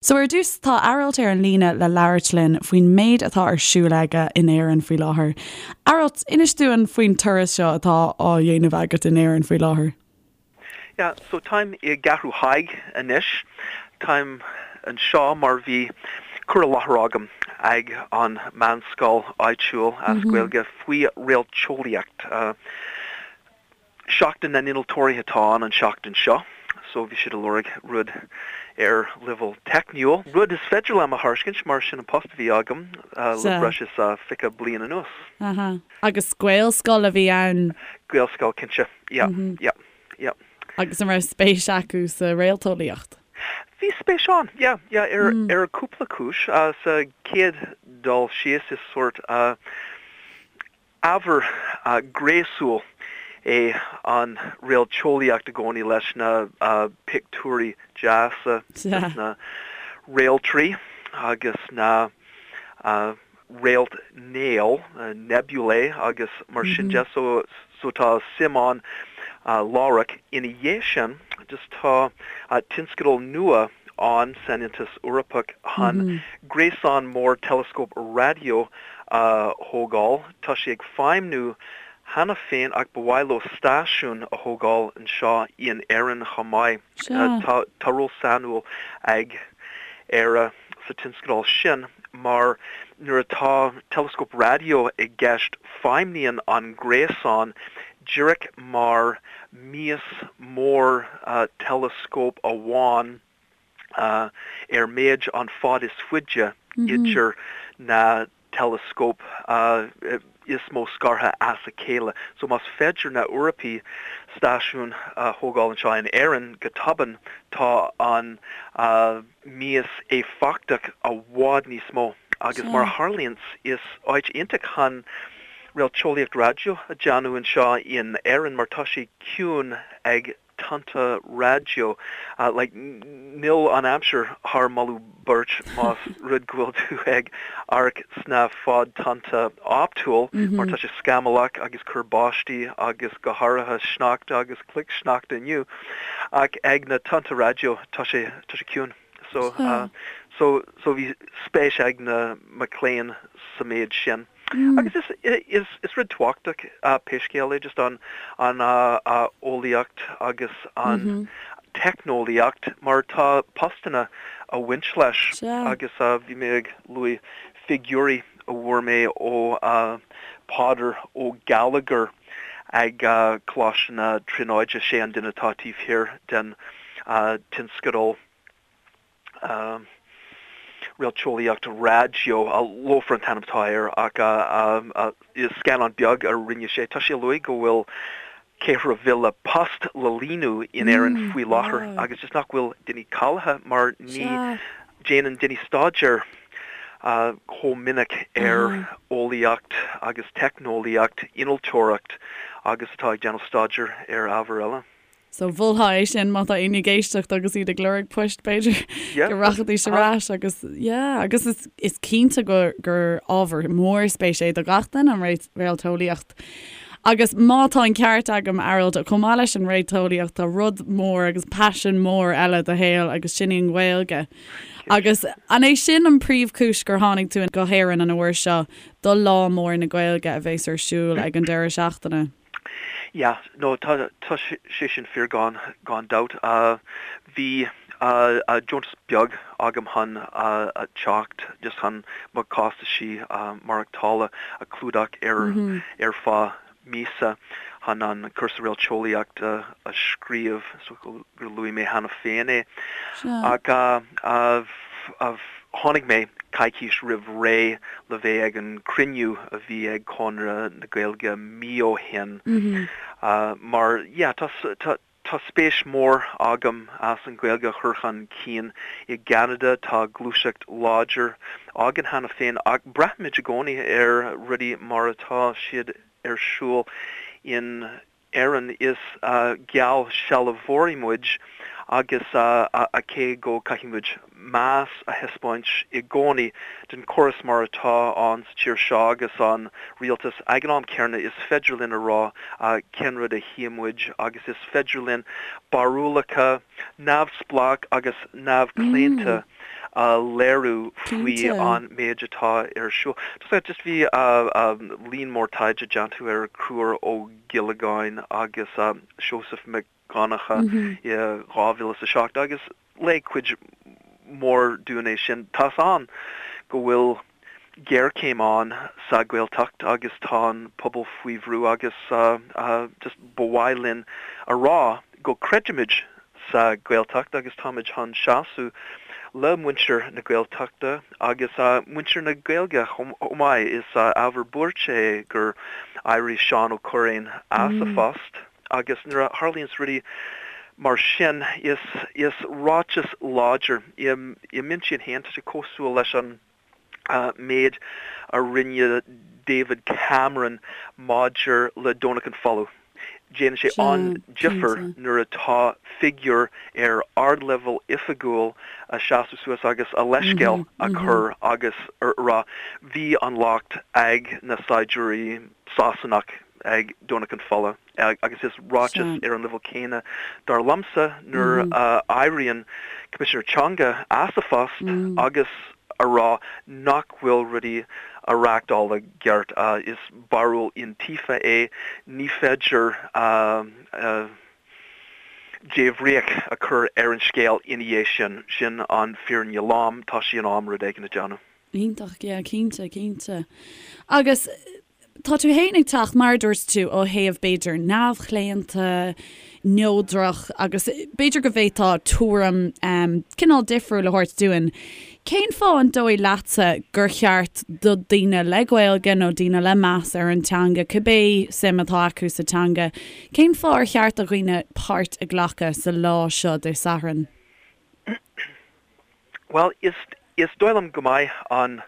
So ar dtús, tá Aralt ar an líne le labhairt linn faoin méid atá ar siúl aige in Éirinn faoi láthair. Aralt, inis dúinn faoin turas seo atá á dhéanamh agat in Éirinn faoi láthair. Yeah, so táim i gCeathrú Thaidhg anois. Táim anseo mar bhí cur i láthair agam ag an meánscoil áitiúil as Gaeilge faoi réalteolaíocht. Seachtain na nInnealtóirí atá ann an seachtain seo so bhí siad ag lorg rud ar leibhéal teicniúil. Rud is féidir liom a thairiscint mar sin an post a bhí agam le breis is 20 bliain anuas. Aha. Agus Gaelscoil a bhí ann? Gaelscoil, cinnte. Yeah, yeah, yeah. Agus an raibh spéis acu sa réalteolaíocht? Bhí spéis ann, yeah, yeah, ar ar cúpla cúis. Sa chéad dul síos is sórt Ábhar gréasúil é an réalteolaíocht i gcónaí leis na pictiúirí deasa de na réaltraí agus na réaltnéil, nebulae, agus mar sin de. So tá suim ann láithreach. Ina dhiaidh sin, just tá tionscadal nua ann san Aontas Eorpach chun gréasán mór teileascóp raidió a thógáil. Tá sé ag feidhmniú cheana féin ach ba mhaith leo stáisiún a thógáil anseo in Éirinn chomh maith. Tá ról sainiúil ag Éire sa tionscadal sin mar nuair atá teileascóp raidió i gceist feidhmníonn an gréasán díreach mar mias mór teileascóp amháin ar méid an fad is faide idir na teileascóip is mó scartha as a chéile. So más féidir na Eorpaigh stáisiún a thógáil anseo in Éirinn go tobann tá an mias éifeachtach i bhfad níos mó agus mar a tharlaíonns is áit iontach chun réalteolaíocht raidió a déanamh anseo in Éirinn mar tá sé ciúin ag tonnta raidió. Like, níl an aimsir thar moladh beirte más rud go bhfuil tú ag amharc sna fad-tonnta optúil mar tá sé scamallach agus cur báistí agus go háirithe sneachta agus cloichshneachta inniu. Ach ag na tonnta raidió tá sé, tá sé ciúin. So, so, so bhí spéis ag na mic léinn sa méid sin. Agus is, is rud tábhachtach pé scéal é just an, an eolaíocht agus an teicneolaíocht mar tá postanna a bhaint leis agus bhí mé ag luaigh figiúirí a bhfuair mé ó Peadar Ó Gallagher ag Coláiste na Tríonóide, sé an duine atá taobh thiar den tionscadal. Réalteolaíocht Raidió, LOFAR an t-ainm atá air ach is scannán beag a rinne sé. Tá sé ag luaigh go bhfuil 4,000 post le líonadh in Éirinn faoi láthair agus just nach bhfuil daoine cáilithe mar ní déanann daoine staidéar chomh minic ar eolaíocht agus teicneolaíocht, innealtóireacht agus atá ag déanamh staidéar ar ábhair eile. So mholfá é sin má tá éinne ag éisteacht agus iad ag lorg poist b'fhéidir go rachaidís ar ais agus yeah agus is, is cinnte gur, gur ábhar mór spéise é do gach duine an réalteolaíocht. Agus má tá an ceart agam Aralt, chomh maith leis an réalteolaíocht tá rud mór agus paisean mór eile i do shaol agus sin í an Ghaeilge. Agus an é sin an príomhchúis gur tháinig tú go hÉirinn an uair seo do Lá Mór na Gaeilge a bheas ar siúl ag an deireadh seachtaine? Yeah, no, tá, tá sé sin fíor gan, gan dabht. Bhí deontas beag agam chun teacht, just chun mo chostaisí maireachtála a chlúdach ar, ar feadh míosa chun an cúrsa réalteolaíochta a scríobh, so gur luaigh mé cheana féin é. Ach tháinig mé coicís roimh ré le bheith ag an cruinniú a bhí ag Conradh na Gaeilge mí ó shin mar yeah tá tá spéis mór agam as an Ghaeilge a chur chun cinn i gCeanada. Tá gluaiseacht láidir againn cheana féin ach braithimid i gcónaí ar rudaí mar atá siad ar siúl in Éirinn, is geallsealbhóirí muid agus cé go caithfidh muid meas a thaispeáint i gcónaí don chóras mar atá ann sa tír seo agus an rialtas, ag an am céanna is féidir linn a rá cén rud a chíonn muid agus is féidir linn barúlacha neamhspleách agus neamhchlaonta. a léiriú faoi an méid atá ar siúl. Just bhí líon mór taighde déanta ar Conchúr Ó Giollagáin agus Seosamh Mac Dhonncha i 2007 agus léigh cuid mhór dúinn é sin. Tá's ann go bhfuil géarchéim ann sa Ghaeltacht agus tá an pobal faoi bhrú agus just ba mhaith linn a rá go creidimid sa Ghaeltacht agus táimid chun seasamh le muintir na Gaeltachta agus muintir na Gaeilge chomh maith. Is ábhar buairte é gur éirigh Seán Ó Cuirreáin as a phost agus nuair a tharlaíonns rudaí mar sin is is ráiteas láidir i m'intinn féin tá sé cosúil leis an méid a rinne David Cameron maidir le Domhnach an Folamh. Déanann sé an-difear nuair atá figiúr ar ardleibhéal oifigiúil a seasamh suas agus a leithscéal a chur agus a rá bhí an locht ag na saighdiúirí Sasanach ag Domhnach an Folamh. Agus is ráiteas ar an leibhéal céanna dar liomsa nuair a éiríonn Coimisinéir Teanga as a phost agus a rá nach bhfuil rudaí á reáchtáil i gceart. Is barúil iontaofa é. Ní féidir débhríoch a chur ar an scéal ina dhiaidh sin. Sin an fírinne lom. Tá sé in am rud éigin a dhéanamh. Iontach, yeah, cinnte, cinnte. Agus Tá tú fhéin ag teacht, mar a dúirt tú, ó thaobh b'fhéidir neamhchlaonta, neodrach agus b'fhéidir go bhféadfá tuairim cineál difriúil a thabhairt dúinn. Cén fáth an dóigh leatsa gur cheart do daoine le Gaeilge nó daoine le meas ar an teanga, cibé suim atá acu sa teanga, cén fáth ar cheart do dhaoine páirt a ghlacadh sa lá seo Dé Sathairn? Bhuel, is is dóigh liom go mbeidh an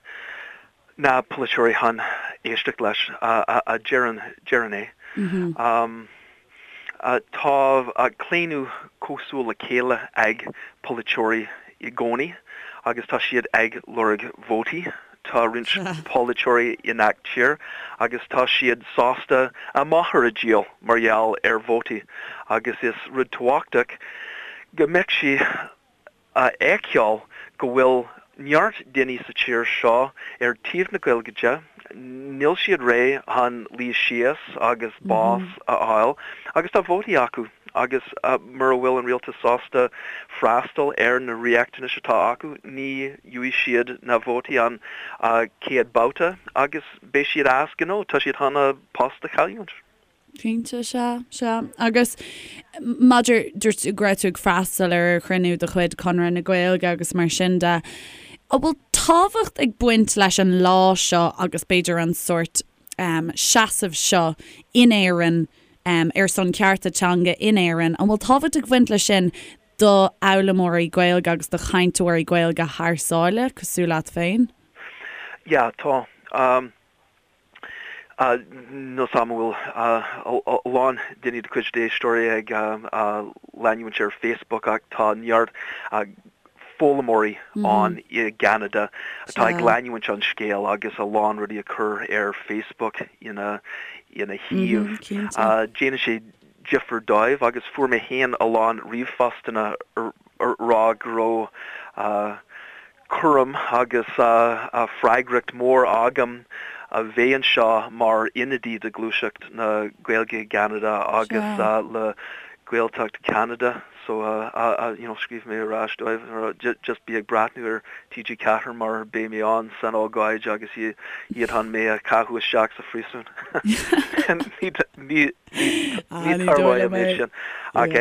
na polaiteoirí chun éisteacht leis a deireann deireann é. Tá claonadh cosúil le chéile ag polaiteoirí i gcónaí agus tá siad ag lorg vótaí. Tá roinnt polaiteoirí i ngach tír agus tá siad sásta a máthair a dhíol mar gheall ar vótaí agus is rud tábhachtach go mbeadh sí a fheiceáil go bhfuil neart daoine sa tír seo ar taobh na Gaeilge de, níl siad réidh chun luí síos agus bás a fháil agus tá vótaí acu agus mura bhfuil an rialtas sásta freastal ar na riachtanais atá acu ní gheobhaidh siad na vótaí an chéad babhta agus beidh siad as gnó, tá siad chun a post a chailliúint. Cinnte, sea, sea. Agus maidir, dúirt tú go raibh tú ag freastal ar chruinniú de chuid Conradh na Gaeilge agus mar sin de, an bhfuil tábhacht ag baint leis an lá seo agus b'fhéidir an sórt seasamh seo in Éirinn ar son cearta teanga in Éirinn, an bhfuil tábhacht ag baint leis sin do fhoghlaimeoirí Gaeilge agus do chainteoirí Gaeilge thar sáile, cosúil leat féin? Yeah, tá. Níl 's a'm an bhfuil a lán daoine de chuid d'éisteoirí ag leanúint ar Facebook ach tá neart foghlaimeoirí ann i gCeanada atá ag leanúint an scéal agus a lán rudaí a chur ar Facebook ina ina thaobh. Déanann sé difear dóibh agus fuair mé féin a lán ríomhphostanna a rá go raibh cúram agus freagracht mór agam a bheith anseo mar ionadaí de Ghluaiseacht na Gaeilge i gCeanada agus le Gaeltacht Cheanada so you know scríobh mé ar ais dóibh just bí ag breathnú ar TG4 mar beidh mé ann san ócáid agus iad chun mé a chaitheamh isteach sa phríosún. Ní ní tarlóidh an méid sin ach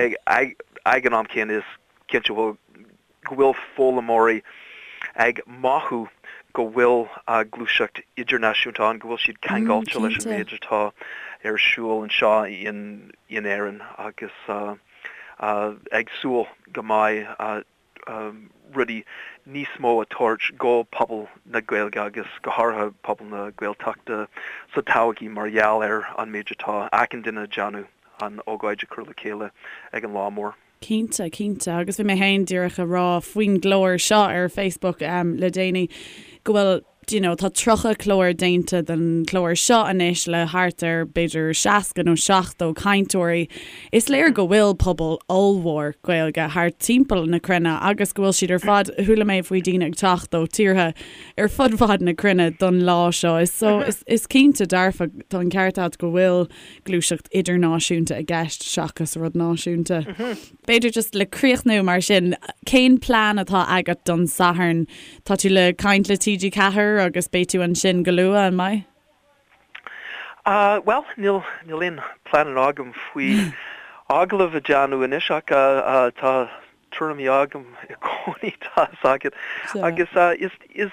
ag an am céanna is cinnte go bhfuil foghlaimeoirí ag mothú go bhfuil gluaiseacht idirnáisiúnta ann, go bhfuil siad ceangailte leis an méid atá ar siúl anseo in Éirinn agus ag súil go mbeidh rudaí níos mó a tabhairt go pobal na Gaeilge agus go háirithe pobal na Gaeltachta sa todhchaí mar gheall ar an méid atá achan duine ag déanamh an ócáid a chur le chéile ag an lá mór. Cinnte, cinnte. Agus bhí mé féin díreach a rá faoin gclár seo ar Facebook le déanaí go bhfuil. Do you know, tá 30 clár déanta den chlár seo anois le thart ar b'fhéidir 60 nó 70 cainteoirí. Is léir go bhfuil pobal ollmhór Gaeilge thart timpeall na cruinne agus go bhfuil siad ar fad, chuala mé faoi daoine ag teacht ó tíortha ar fud fad na cruinne don lá seo. Is so, is, is cinnte dearfa, tá an ceart agat go bhfuil gluaiseacht idirnáisiúnta i gceist seachas rud náisiúnta. B'fhéidir just le críochnú mar sin, cén plean atá agat don Satharn? Tá tú le caint le TG4 agus beidh tú ansin go luath, an mbeidh? Ah, bhuel, níl, níl aon pleananna agam faoi agallamh a déanamh anois ach tá tuairimí agam i gcónaí, tá fhios agat. Agus is, is,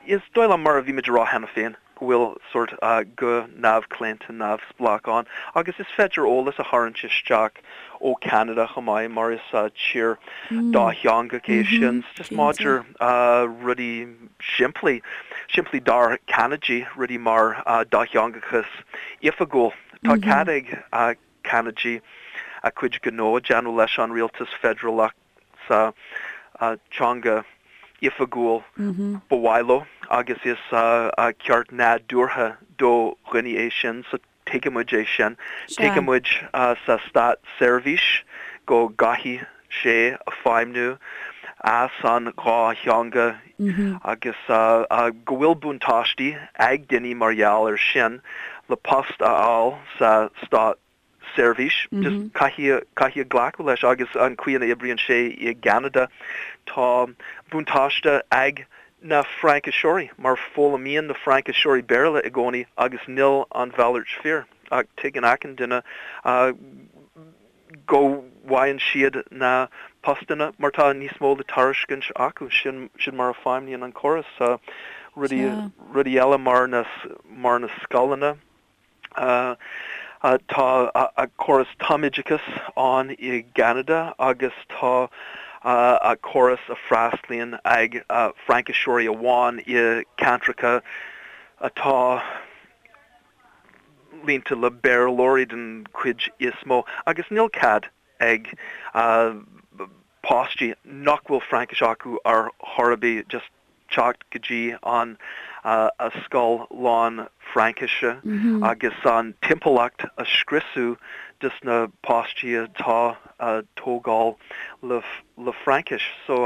Is dóigh liom, mar a bhí muid a rá cheana féin, go bhfuil sórt guth neamhchlaonta neamhspleách ann agus is féidir eolas a tharraingt isteach ó Cheanada chomh maith mar is tír dátheangach é sin. Just maidir rudaí simplí, simplí dár Ceanadaigh, rudaí mar dátheangachas oifigiúil. Tá cead ag Ceanadaigh a cuid gnó a déanamh leis an rialtas feidearálach sa teanga oifigiúil ba mhaith leo agus is ceart nádúrtha do dhaoine é sin so tuigimid é sin. Tuigimid sa státseirbhís go gcaithfidh sé feidhmiú as an dhá theanga agus go bhfuil buntáistí ag daoine mar gheall ar sin le post a fháil sa stát seirbhís. Just caithfidh, caithfidh glacadh leis agus an chaoi ina oibríonn sé i gCeanada, tá buntáiste ag na Frainciseoirí mar foghlaimíonn na Frainciseoirí Béarla i gcónaí agus níl an mhalairt fíor ach tuigeann achan duine go bhfaigheann siad na postanna mar tá níos mó le tairiscint acu. Sin, sin mar a feidhmníonn an córas. Rudaí, rudaí eile mar na, mar na scoileanna. Tá córas tumoideachais ann i gCeanada agus tá córas a freastlaíonn ag Frainciseoirí amháin i ceantracha atá líonta le Béarlóirí den chuid is mó agus níl cead ag páistí nach bhfuil Fraincis acu ar chor ar bith just teacht go dtí an scoil lán Fraincise agus an timpeallacht a scriosadh dos na páistí atá a tógáil le Fraincis. So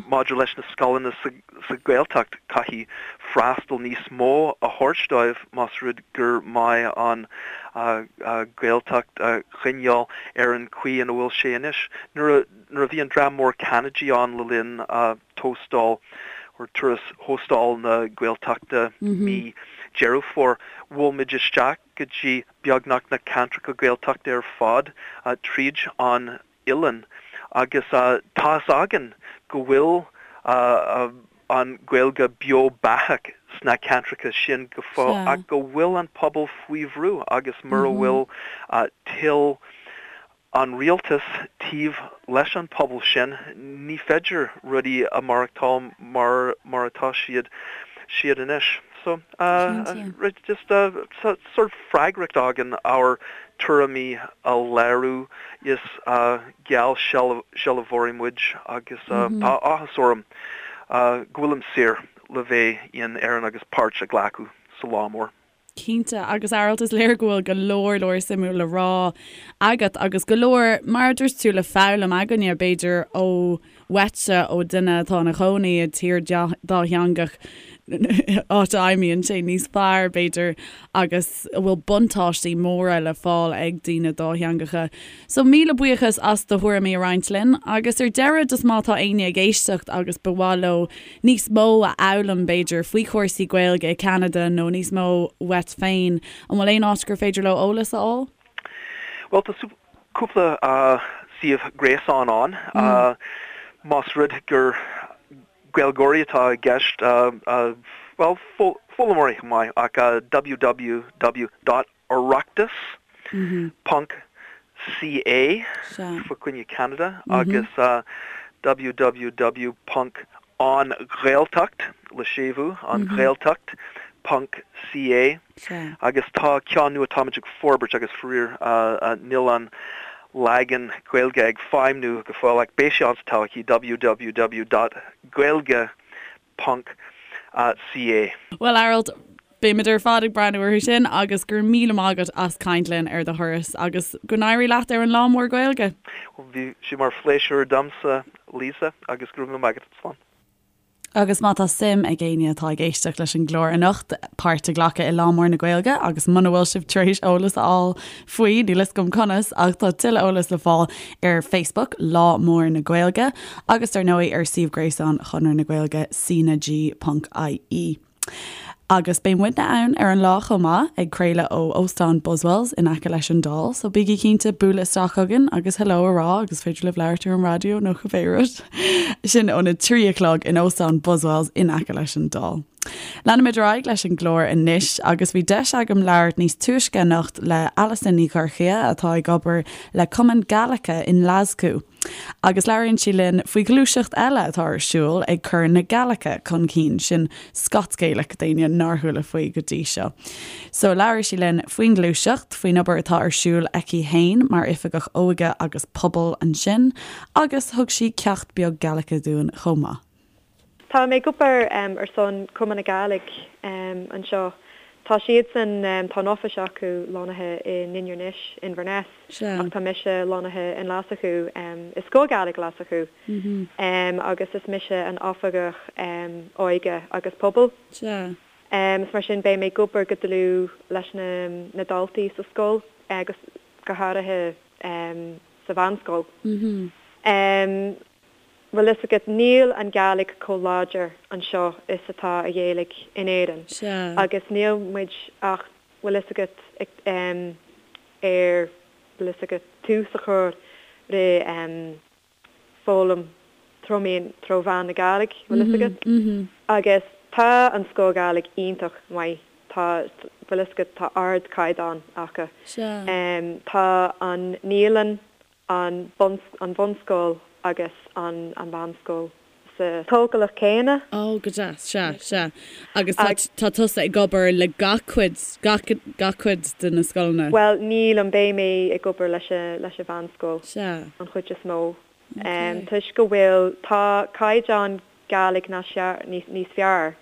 maidir leis na scoileanna sa Ghaeltacht caithfidh freastal níos mó a thabhairt dóibh más rud gur maith an Ghaeltacht a choinneáil ar an chaoi ina bhfuil sé anois. Nuair a bhí an dream mór Ceanadaigh ann le linn tóstal or turas Thóstal na Gaeltachta mí Deireadh Fómhair. Bhuail muid isteach go dtí beagnach na ceantracha Gaeltachta ar fad tríd an oileán agus tá fhios againn go bhfuil an Ghaeilge beo beathach sna ceantracha sin go fóill ach go bhfuil an pobal faoi bhrú agus mura bhfuil toil an rialtas taobh leis an pobal sin, ní féidir rudaí a maireachtáil mar mar atá siad siad anois. So, just tá sort freagracht againn ár tuairimí a léiriú, is geallsealbhóirí muid agus tá áthas orm go bhfuilim saor le bheith in Éirinn agus páirt a ghlacadh sa lá mór. Cinnte, agus Aralt, is léir go bhfuil go leor leor suimiúil le rá agat agus go leor, mar a dúirt tú, le foghlaim againne, b'fhéidir, ó uaitse, ó duine atá ina chónaí i dtír dátheangach, áit a fheidhmíonn sé níos fearr, b'fhéidir, agus a bhfuil buntáistí móra le fáil ag daoine dátheangacha. So, míle buíochas as do thuairimí a roinnt linn, agus ar deireadh, just má tá éinne ag éisteacht agus ba mhaith leo níos mó a fhoghlaim, b'fhéidir, faoi chúrsaí Gaeilge i gCeanada nó níos mó uait féin, an bhfuil aon áit gur féidir leo eolas a fháil? Bhuel, tá cúpla suíomh gréasáin ann. Más rud gur Gaeilgeoirí atá i gceist, bhuel, foghlaimeoirí chomh maith, ach www dot Oireachtas ponc CA fá choinne Ceanada agus www ponc An Ghaeltacht, le séimhiú, An Ghaeltacht ponc CA agus tá ceann nua atáimid ag forbairt agus faraor níl an leagan Gaeilge ag feidhmniú go fóill ach beidh sé ann sa todhchaí www dot gaeilge ponc. CA. Bhuel, Aralt, beimid ar fad ag breathnú orthu sin agus go raibh míle maith agat as caint linn ar do thuras agus go n-éirí leat ar an Lá Mór Gaeilge. Bhí sé mar phléisiúr domsa, Lisa, agus go raibh míle maith agat. Slán. Agus má tá suim ag éinne atá ag éisteacht leis an gclár anocht páirt a ghlacadh i Lá Mór na Gaeilge agus muna bhfuil sibh tar éis eolas a fháil faoi, níl fhios agam conas, ach tá tuilleadh eolais le fáil ar Facebook, Lá Mór na Gaeilge, agus dar ndóigh ar suíomh gréasáin Chonradh na Gaeilge, cnag.ie. Agus beidh muidne ann ar an lá chomh maith, ag craoladh ó Óstán Buswells in aice leis an Dáil, so bígí cinnte bualadh isteach chugainn agus hello a rá agus féidir libh labhairt ar an raidió nó cibé rud. Sin óna 3 a chlog in Óstán Buswells in aice leis an Dáil. Leanfaimid ar aghaidh leis an gclár anois agus bhí deis agam labhairt níos túisce anocht le Alison Ní Dhorchaidhe atá ag obair le Cumann Gaelice i nGlaschú. Agus labhraíonn sí linn faoi ghluaiseacht eile atá ar siúl ag cur na Gaeilge chun cinn, sin Scots Gaelic d'éinne nár chuala faoi go dtí seo. So labhair sí linn faoin ghluaiseacht, faoin obair atá ar siúl aici fhéin mar Oifigeach Óige agus Pobail ansin, agus thug sí ceacht beag Gaeilge dúinn chomh maith. Tá mé ag obair ar son Cumann na Gàidhlig anseo. Tá siadsan, tá an office acu lonnaithe i nInbhir Nis, Inverness, ach tá mise lonnaithe i nGlaschú, i Sgoil Ghàidhlig Ghlaschú, agus is mise an Oifigeach Óige agus Pobail. Is mar sin beidh mé ag obair go dlúth leis na daltaí sa scoil agus go háirithe sa mheánscoil. Bhfuil fhios agat, níl an Gàidhlig chomh láidir anseo is atá a Ghaeilge in Éirinn. Sea. Agus níl muid ach, bhfuil fhios agat, ag, em, ar, bhfuil fhios agat, tús a chur re, em, foghlaim tró méan, tró mheán na Gàidhlig, bhfuil fhios agat. Agus tá an Sgoil Ghàidhlig iontach maith, tá, bhfuil fhios agat, tá ardchaighdeán acu. Sea. Em, tá an naíolann an bhunscoil agus an mheánscoil sa tógálach céanna. Ó, go deas, sea, sea. Agus tá, tá tusa ag obair le gach cuid, gach, gach cuid de na scoileanna? Bhuel, nílim, beidh mé ag obair leis a, leis an mheánscoil Sea. an chuid is mó. Ok. Toisc go bhfuil, tá caighdeán Gàidhlig níos fearr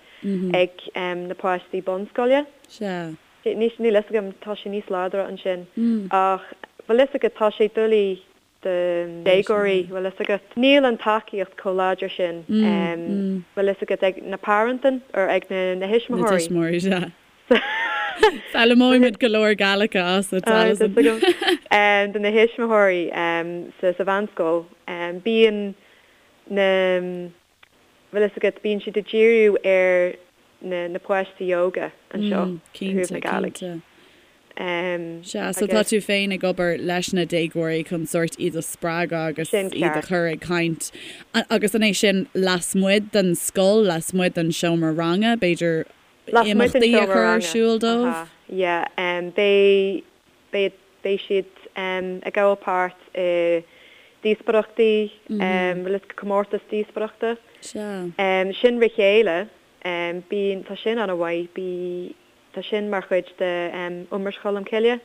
ag na páistí bunscoile. Sea. Níl fhios agam, tá sé níos láidre ansin. Ach bhfuil fhios agat, tá sé doiligh do déagóirí, bhfuil fhios agat. Níl an tacaíocht chomh láidir sin, bhfuil fhios agat, ag na parents or ag na thuismitheoirí. Na tuismitheoirí, sea. Foghlaimeoimid go leor Gaeilge asat, Alison. Do na thuismitheoirí sa mheánscoil, bíonn na. bhfuil fhios agat, bíonn siad ag díriú ar na na páistí óga anseo i dtaobh na Gàidhlig. Cinnte. Sea, so tá tú féin ag obair leis na déagóirí chun sórt iad a spreagadh agus iad a chur ag caint. Agus an é sin lasmuigh den scoil, lasmuigh den seomra ranga, b'fhéidir imeachtaí a chur ar siúl dóibh? Yeah, beidh Beidh beidh siad ag gabháil páirt i díospóireachtaí, bhfuil fhios agat, comórtas díospóireachta. Sea. Sin Ri Chèile, bíonn, tá sin an-mhaith, bí, tá sin mar chuid de Iomrais Cholm Cille.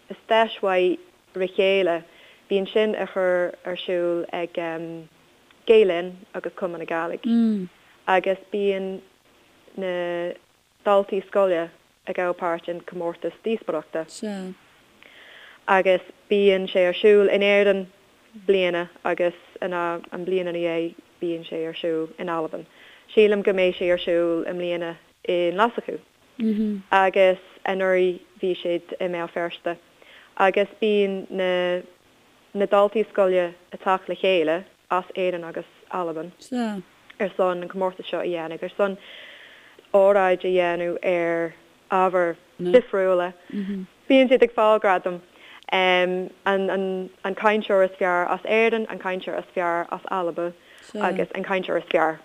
Is deis mhaith Ri Chèile, bíonn sin á chur ar siúl ag Gael Linn agus Cumann na Gàidhlig agus bíonn na daltaí scoile ag gabháil páirt in comórtas díospóireachta. Sea. Agus bíonn sé ar siúl in Éirinn bliana agus ina an bliain ina dhiaidh bíonn sé ar siúl in Albain. Sílim go mbeidh sé ar siúl i mbliana i nGlaschú. Agus anuraidh bhí siad i mBéal Feirste. Agus bíonn na na daltaí scoile ag teacht le chéile as Éirinn agus Albain ar son an comórtas seo a dhéanamh, ar son óráid a dhéanamh ar ábhair difriúla. Bíonn siad ag fáil gradam, an an cainteoir is fearr as Éirinn, an cainteoir is fearr as Alba agus an cainteoir is fearr.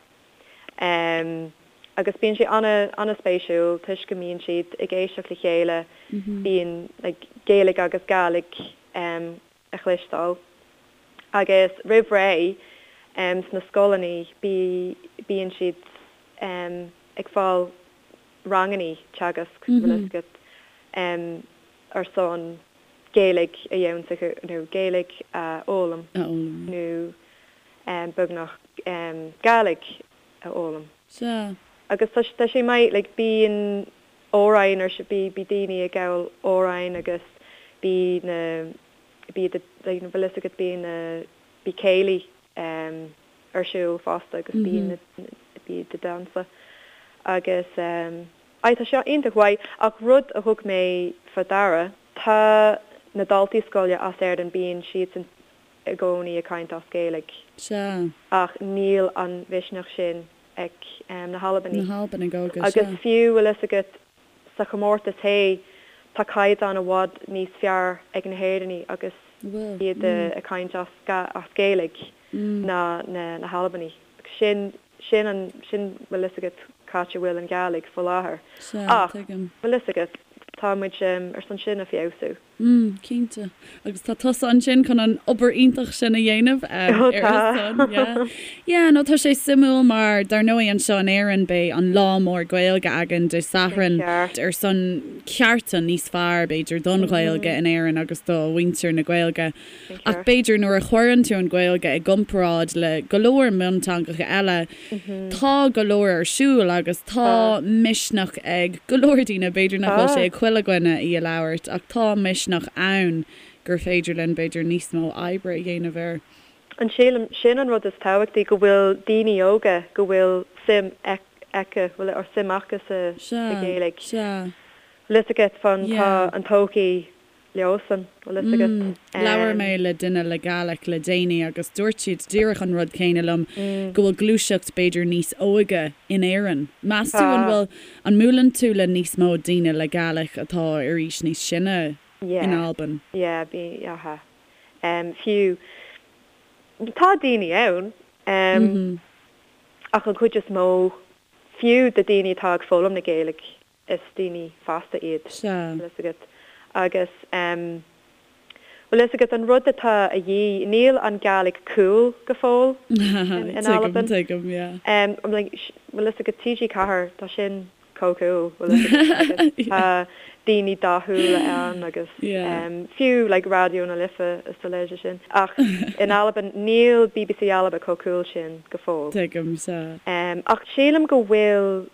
Agus bíonn sé an-spéisiúil toisc go mbíonn siad ag éisteacht le chéile, bíonn like Gaeilge agus Gàidhlig a chloisteáil. Agus roimh ré sna scoileanna bíonn siad ag fáil ranganna teagasc, bhfuil fhios agat, ar son Gaeilge a dhéanamh nó Gaeilge a fhoghlaim nó beagnach Gàidhlig a fhoghlaim. Sea. Agus tá tá sé maith, like bíonn amhráin ar bí bí daoine ag gabháil amhráin agus bí na bí the like bhfuil fhios agat bíonn na bí céilí em ar siúl fosta agus bíonn na bí the damhsa agus em aye tá sé iontach mhaith ach rud a thug mé fá deara tá na daltaí scoile as Éirinn bíonn siadsan i gcónaí ag caint as Gaeilge. Sea. Ach níl an mhisneach sin ag na hAlbanaigh. Na hAlbanaigh óga, sea. Agus fiú, bhfuil fhios agat, sa chomórtas hé, tá caighdeán i bhfad níos fearr ag na hÉireannaigh agus iad ag caint as Gaeilge ná na hAlbanaigh. Sin, sin an, sin, bhfuil fhios agat, c'áit a bhfuil an Ghàidhlig faoi láthair. Sea, tuigim. Ach, bhfuil fhios agat, tá muid ar son sin a feabhsú. Mm, cinnte. Agus tá tusa ansin chun an obair iontach sin a dhéanamh ar a son, yeah. Yeah, no, tá sé suimiúil mar dar ndóigh anseo in Éirinn beidh an lá mór Gaeilge againn Dé Sathairn ar son cearta níos fearr b'fhéidir don Ghaeilge in Éirinn agus do mhuintir na Gaeilge. Ach b'fhéidir nuair a chuireann tú an Ghaeilge i gcomparáid le go leor mionteangacha eile, tá go leor ar siúl agus tá misneach ag go leor daoine, b'fhéidir nach bhfuil sé ag chuile dhuine í a labhairt, ach tá misneach ann gur féidir linn b'fhéidir níos mó oibre a dhéanamh air. An sílim, sin an rud is tábhachtaí, go bhfuil daoine óga, go bhfuil suim aici, bhfuil or suim acu sa Ghaeilge. Sea, sea. Bhfuil fhios agat fán, tá an todhchaí leosan, bhfuil fhios agat. Labhair mé le duine le Gàidhlig le déanaí agus dúirt siad díreach an rud céanna liom, go bhfuil gluaiseacht b'fhéidir níos óige in Éirinn. Meas tú an bhfuil, an mbuaileann tú le níos mó daoine le Gàidhlig atá ar aois níos sine in Albain? Yeah, bí, aha. Fiú, tá daoine ann, ach an chuid is mó, fiú de daoine atá ag foghlaim na Gaeilge, is daoine fásta iad, Sea. bhfuil fhios agat. Agus em, bhfuil fhios agat, an rud atá a dhíth, níl an Gàidhlig cool go fóill in, in Tuigim, Albain. tuigim, yeah. Em, I'm like, bhfuil fhios agat, TG4, tá sin chomh cool, bhfuil fhios agat, agus Yeah. tá daoine dathúla ann agus Yeah. em, fiú like Raidió na Life is a leithéid sin. Ach in Albain, níl BBC Alba chomh cool sin go fóill. Tuigim, sea. Em, ach sílim go bhfuil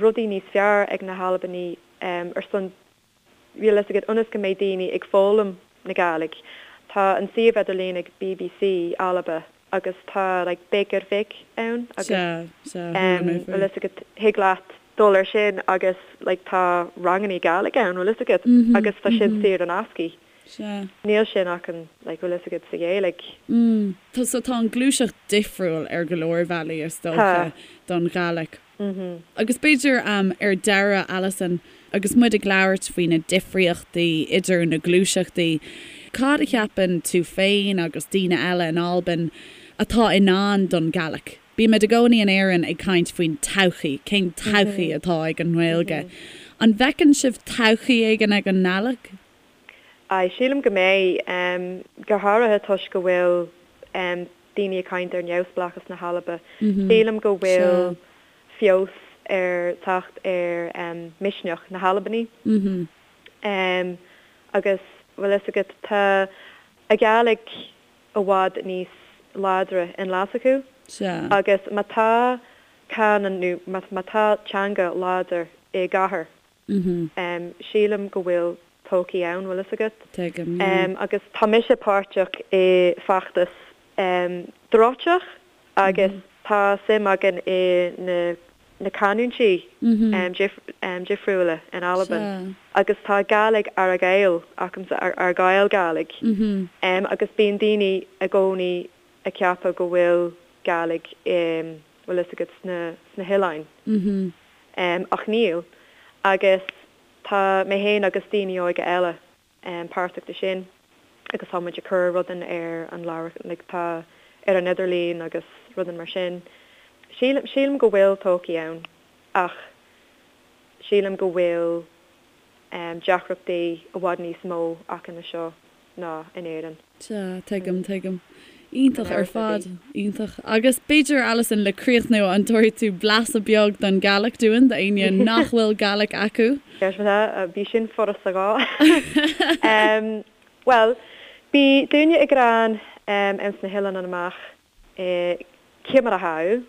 rudaí níos fearr ag na hAlbanaigh ar son, bhfuil fhios agat, ionas go mbeidh daoine ag foghlaim na Gàidhlig. Tá an suíomh idirlín ag BBC Alba agus tá like Beag Air Bhig ann agus Sea, sea, chuala mé faoi. bhfuil fhios agat, thig leat dul ar sin agus like tá rangannaí Gàidhlig ann, bhfuil fhios agat, agus tá sin saor in aisce. Sea. Níl sin acu like bhfuil fhios agat sa Ghaeilge. Mm. Tá, so tá an ghluaiseacht difriúil ar go leor bealaí is dócha Tá. don Ghàidhlig. Mm-hmm. Agus b'fhéidir ar deireadh, Alison, agus muid ag labhairt faoi na difríochtaí idir na gluaiseachtaí, cad a cheapann tú féin agus daoine eile in Albain atá i ndán don Ghàidhlig? Bímid i gcónaí in Éirinn ag caint faoin todhchaí, cén todhchaí atá ag an nGaeilge. An bhfeiceann sibh todhchaí éigin ag an nGàidhlig? Aye, sílim go mbeidh, go háirithe toisc go bhfuil daoine ag caint ar neamhspleáchas na hAlba. Sílim go bhfuil feabhas ar teacht ar misneach na hAlbanaigh. Agus bhfuil fhios agat, tá a Gàidhlig i bhfad níos láidre in Glaschú agus má tá canúint nó má tá teanga láidir i gcathair, Sílim go bhfuil todhchaí ann, bhfuil fhios agat. Tuigim, yeah. Agus tá mise páirteach i feachtas Dòrteach agus tá suim againn i na na canúintí difriúla in Albain agus tá Gàidhlig Argyll acamsa, Argyll Gàidhlig, agus bíonn daoine i gcónaí ag ceapadh go bhfuil Gàidhlig bhfuil fhios agat, sna, sna hoileáin. Ach níl. Agus tá mé féin agus daoine óga eile páirteach de sin agus tá muid ag cur rudaí ar an leabhar, like tá ar an idirlíon agus rudaí mar sin. Sílim, sílim go bhfuil todhchaí ann ach sílim go bhfuil deacrachtaí i bhfad níos mó acu anseo ná in Éirinn. Sea, tuigim, tuigim. Iontach ar fad, iontach. Agus b'fhéidir, Alison, le críochnú, an dtabharfaidh tú blaiseadh beag den Ghàidhlig dúinn, d'éinne nach bhfuil Gàidhlig acu? Bhí sin furasta dhá. Bhuel, bhi daoine ag ràdh anns na h-eileanan amach, Ciamar a tha thu?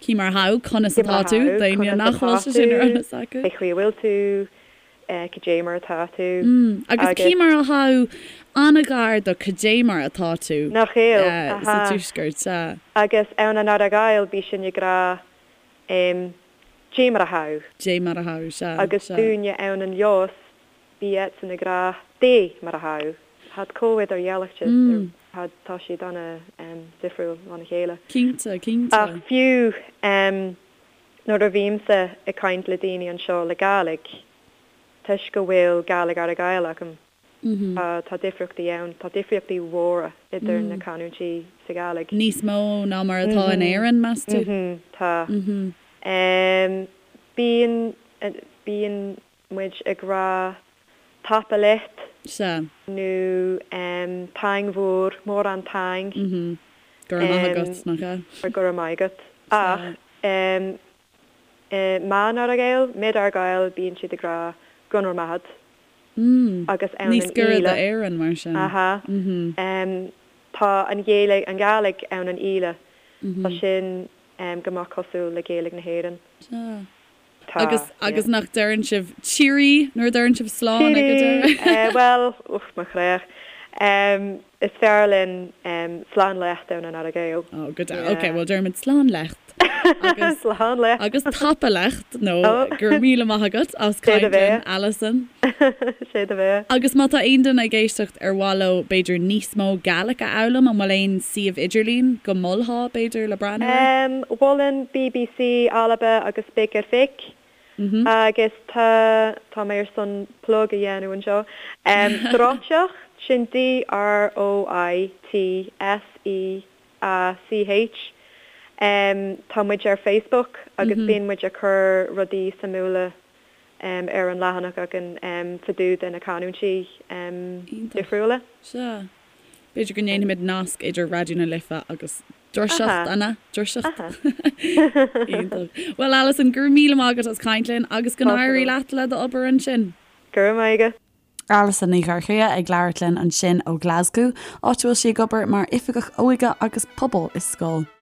Cì mar tha thu, conas atá tú, daoine nach bhfuil sé sin ar eolas acu. Cé chaoi a bhfuil tú, cad é mar atá tú. Agus cì mar a tha thu an-ghar do cad é mar atá tú Nach eil, sa tuaisceart, sea. Agus ann an Earra-Ghàidheal bith sinn ag ràdh Dè mar a tha thu. Dè mar a tha thu, sea, Agus dúinne ann an Leòdhas bith iadsan ag ràdh Dè mar a tha thu. Thàd comh idirdhealaichte, thàd, tá siad ana difriúil óna chéile. Cinnte, cinnte. Ach fiú nuair a bhímse ag caint le daoine anseo le Gàidhlig, toisc go bhfuil Gàidhlig Earra-Ghàidheal agam, tá, tá difríochtaí ann, tá difríochtaí mhóra idir na canúintí sa Ghàidhlig. Níos mó ná mar atá in Éirinn, meas tú? Tá. Bíonn, bíonn muid ag rá Tapa leat. Sea. Nó taing mhòr, mórán taing. Go raibh maith agat, nach ea? Go raibh maith agat. Ach i meadhon Earra-Ghàidheal, mid Argyll, bíonn siad ag rá Gun raibh math a'd. Agus ann Níos giorra d'Éirinn, mar sin. Aha. Tá an Ghaeilge, an Ghàidhlig ann an Ìle. Tá sin go maith cosúil le Gaeilge na hÉireann. Sea. Tá, Agus, agus nach deireann sibh cheerie nuair a deireann sibh slán ag an deireadh? Cheerie! Bhuel, uch, mo chreach. Is fearr linn slán leat ann an Earra-Ghàidheal. Oh, go deas. Ok, bhuel deirimid slán leat. Agus, Slán leat. agus tapa leat, nó go raibh míle maith agat as caint linn, Alison. Sé do bheatha. Agus má tá aon duine ag éisteacht ar mhaith leo b'fhéidir níos mó Gaelic a fhoghlaim, an bhfuil aon suíomh idirlín go molfá b'fhéidir le breathnú air? Mholfainn BBC Alba agus Big ar Bhig agus tá, tá mé ar son plug a dhéanamh anseo, Droitseach, sin D-R-O-I-T-S-E-A-C-H. Tá muid ar Facebook agus bíonn muid ag cur rudaí suimiúla ar an leathanach againn fá dtaobh de na canúintí difriúla. Sea. B'fhéidir go ndéanfaimid nasc idir Raidió na Life agus Droiseacht, an ea? Droiseacht. Iontach. Bhuel, Alison, go raibh míle maith agat as caint linn agus go n-éirí leat le d'obair ansin. Go raibh maith agat. Alison Ní Dhorchaidhe ag labhairt linn ansin ó Ghlaschú, áit a bhfuil sí ag obair mar Oifigeach Óige agus Pobail i scoil.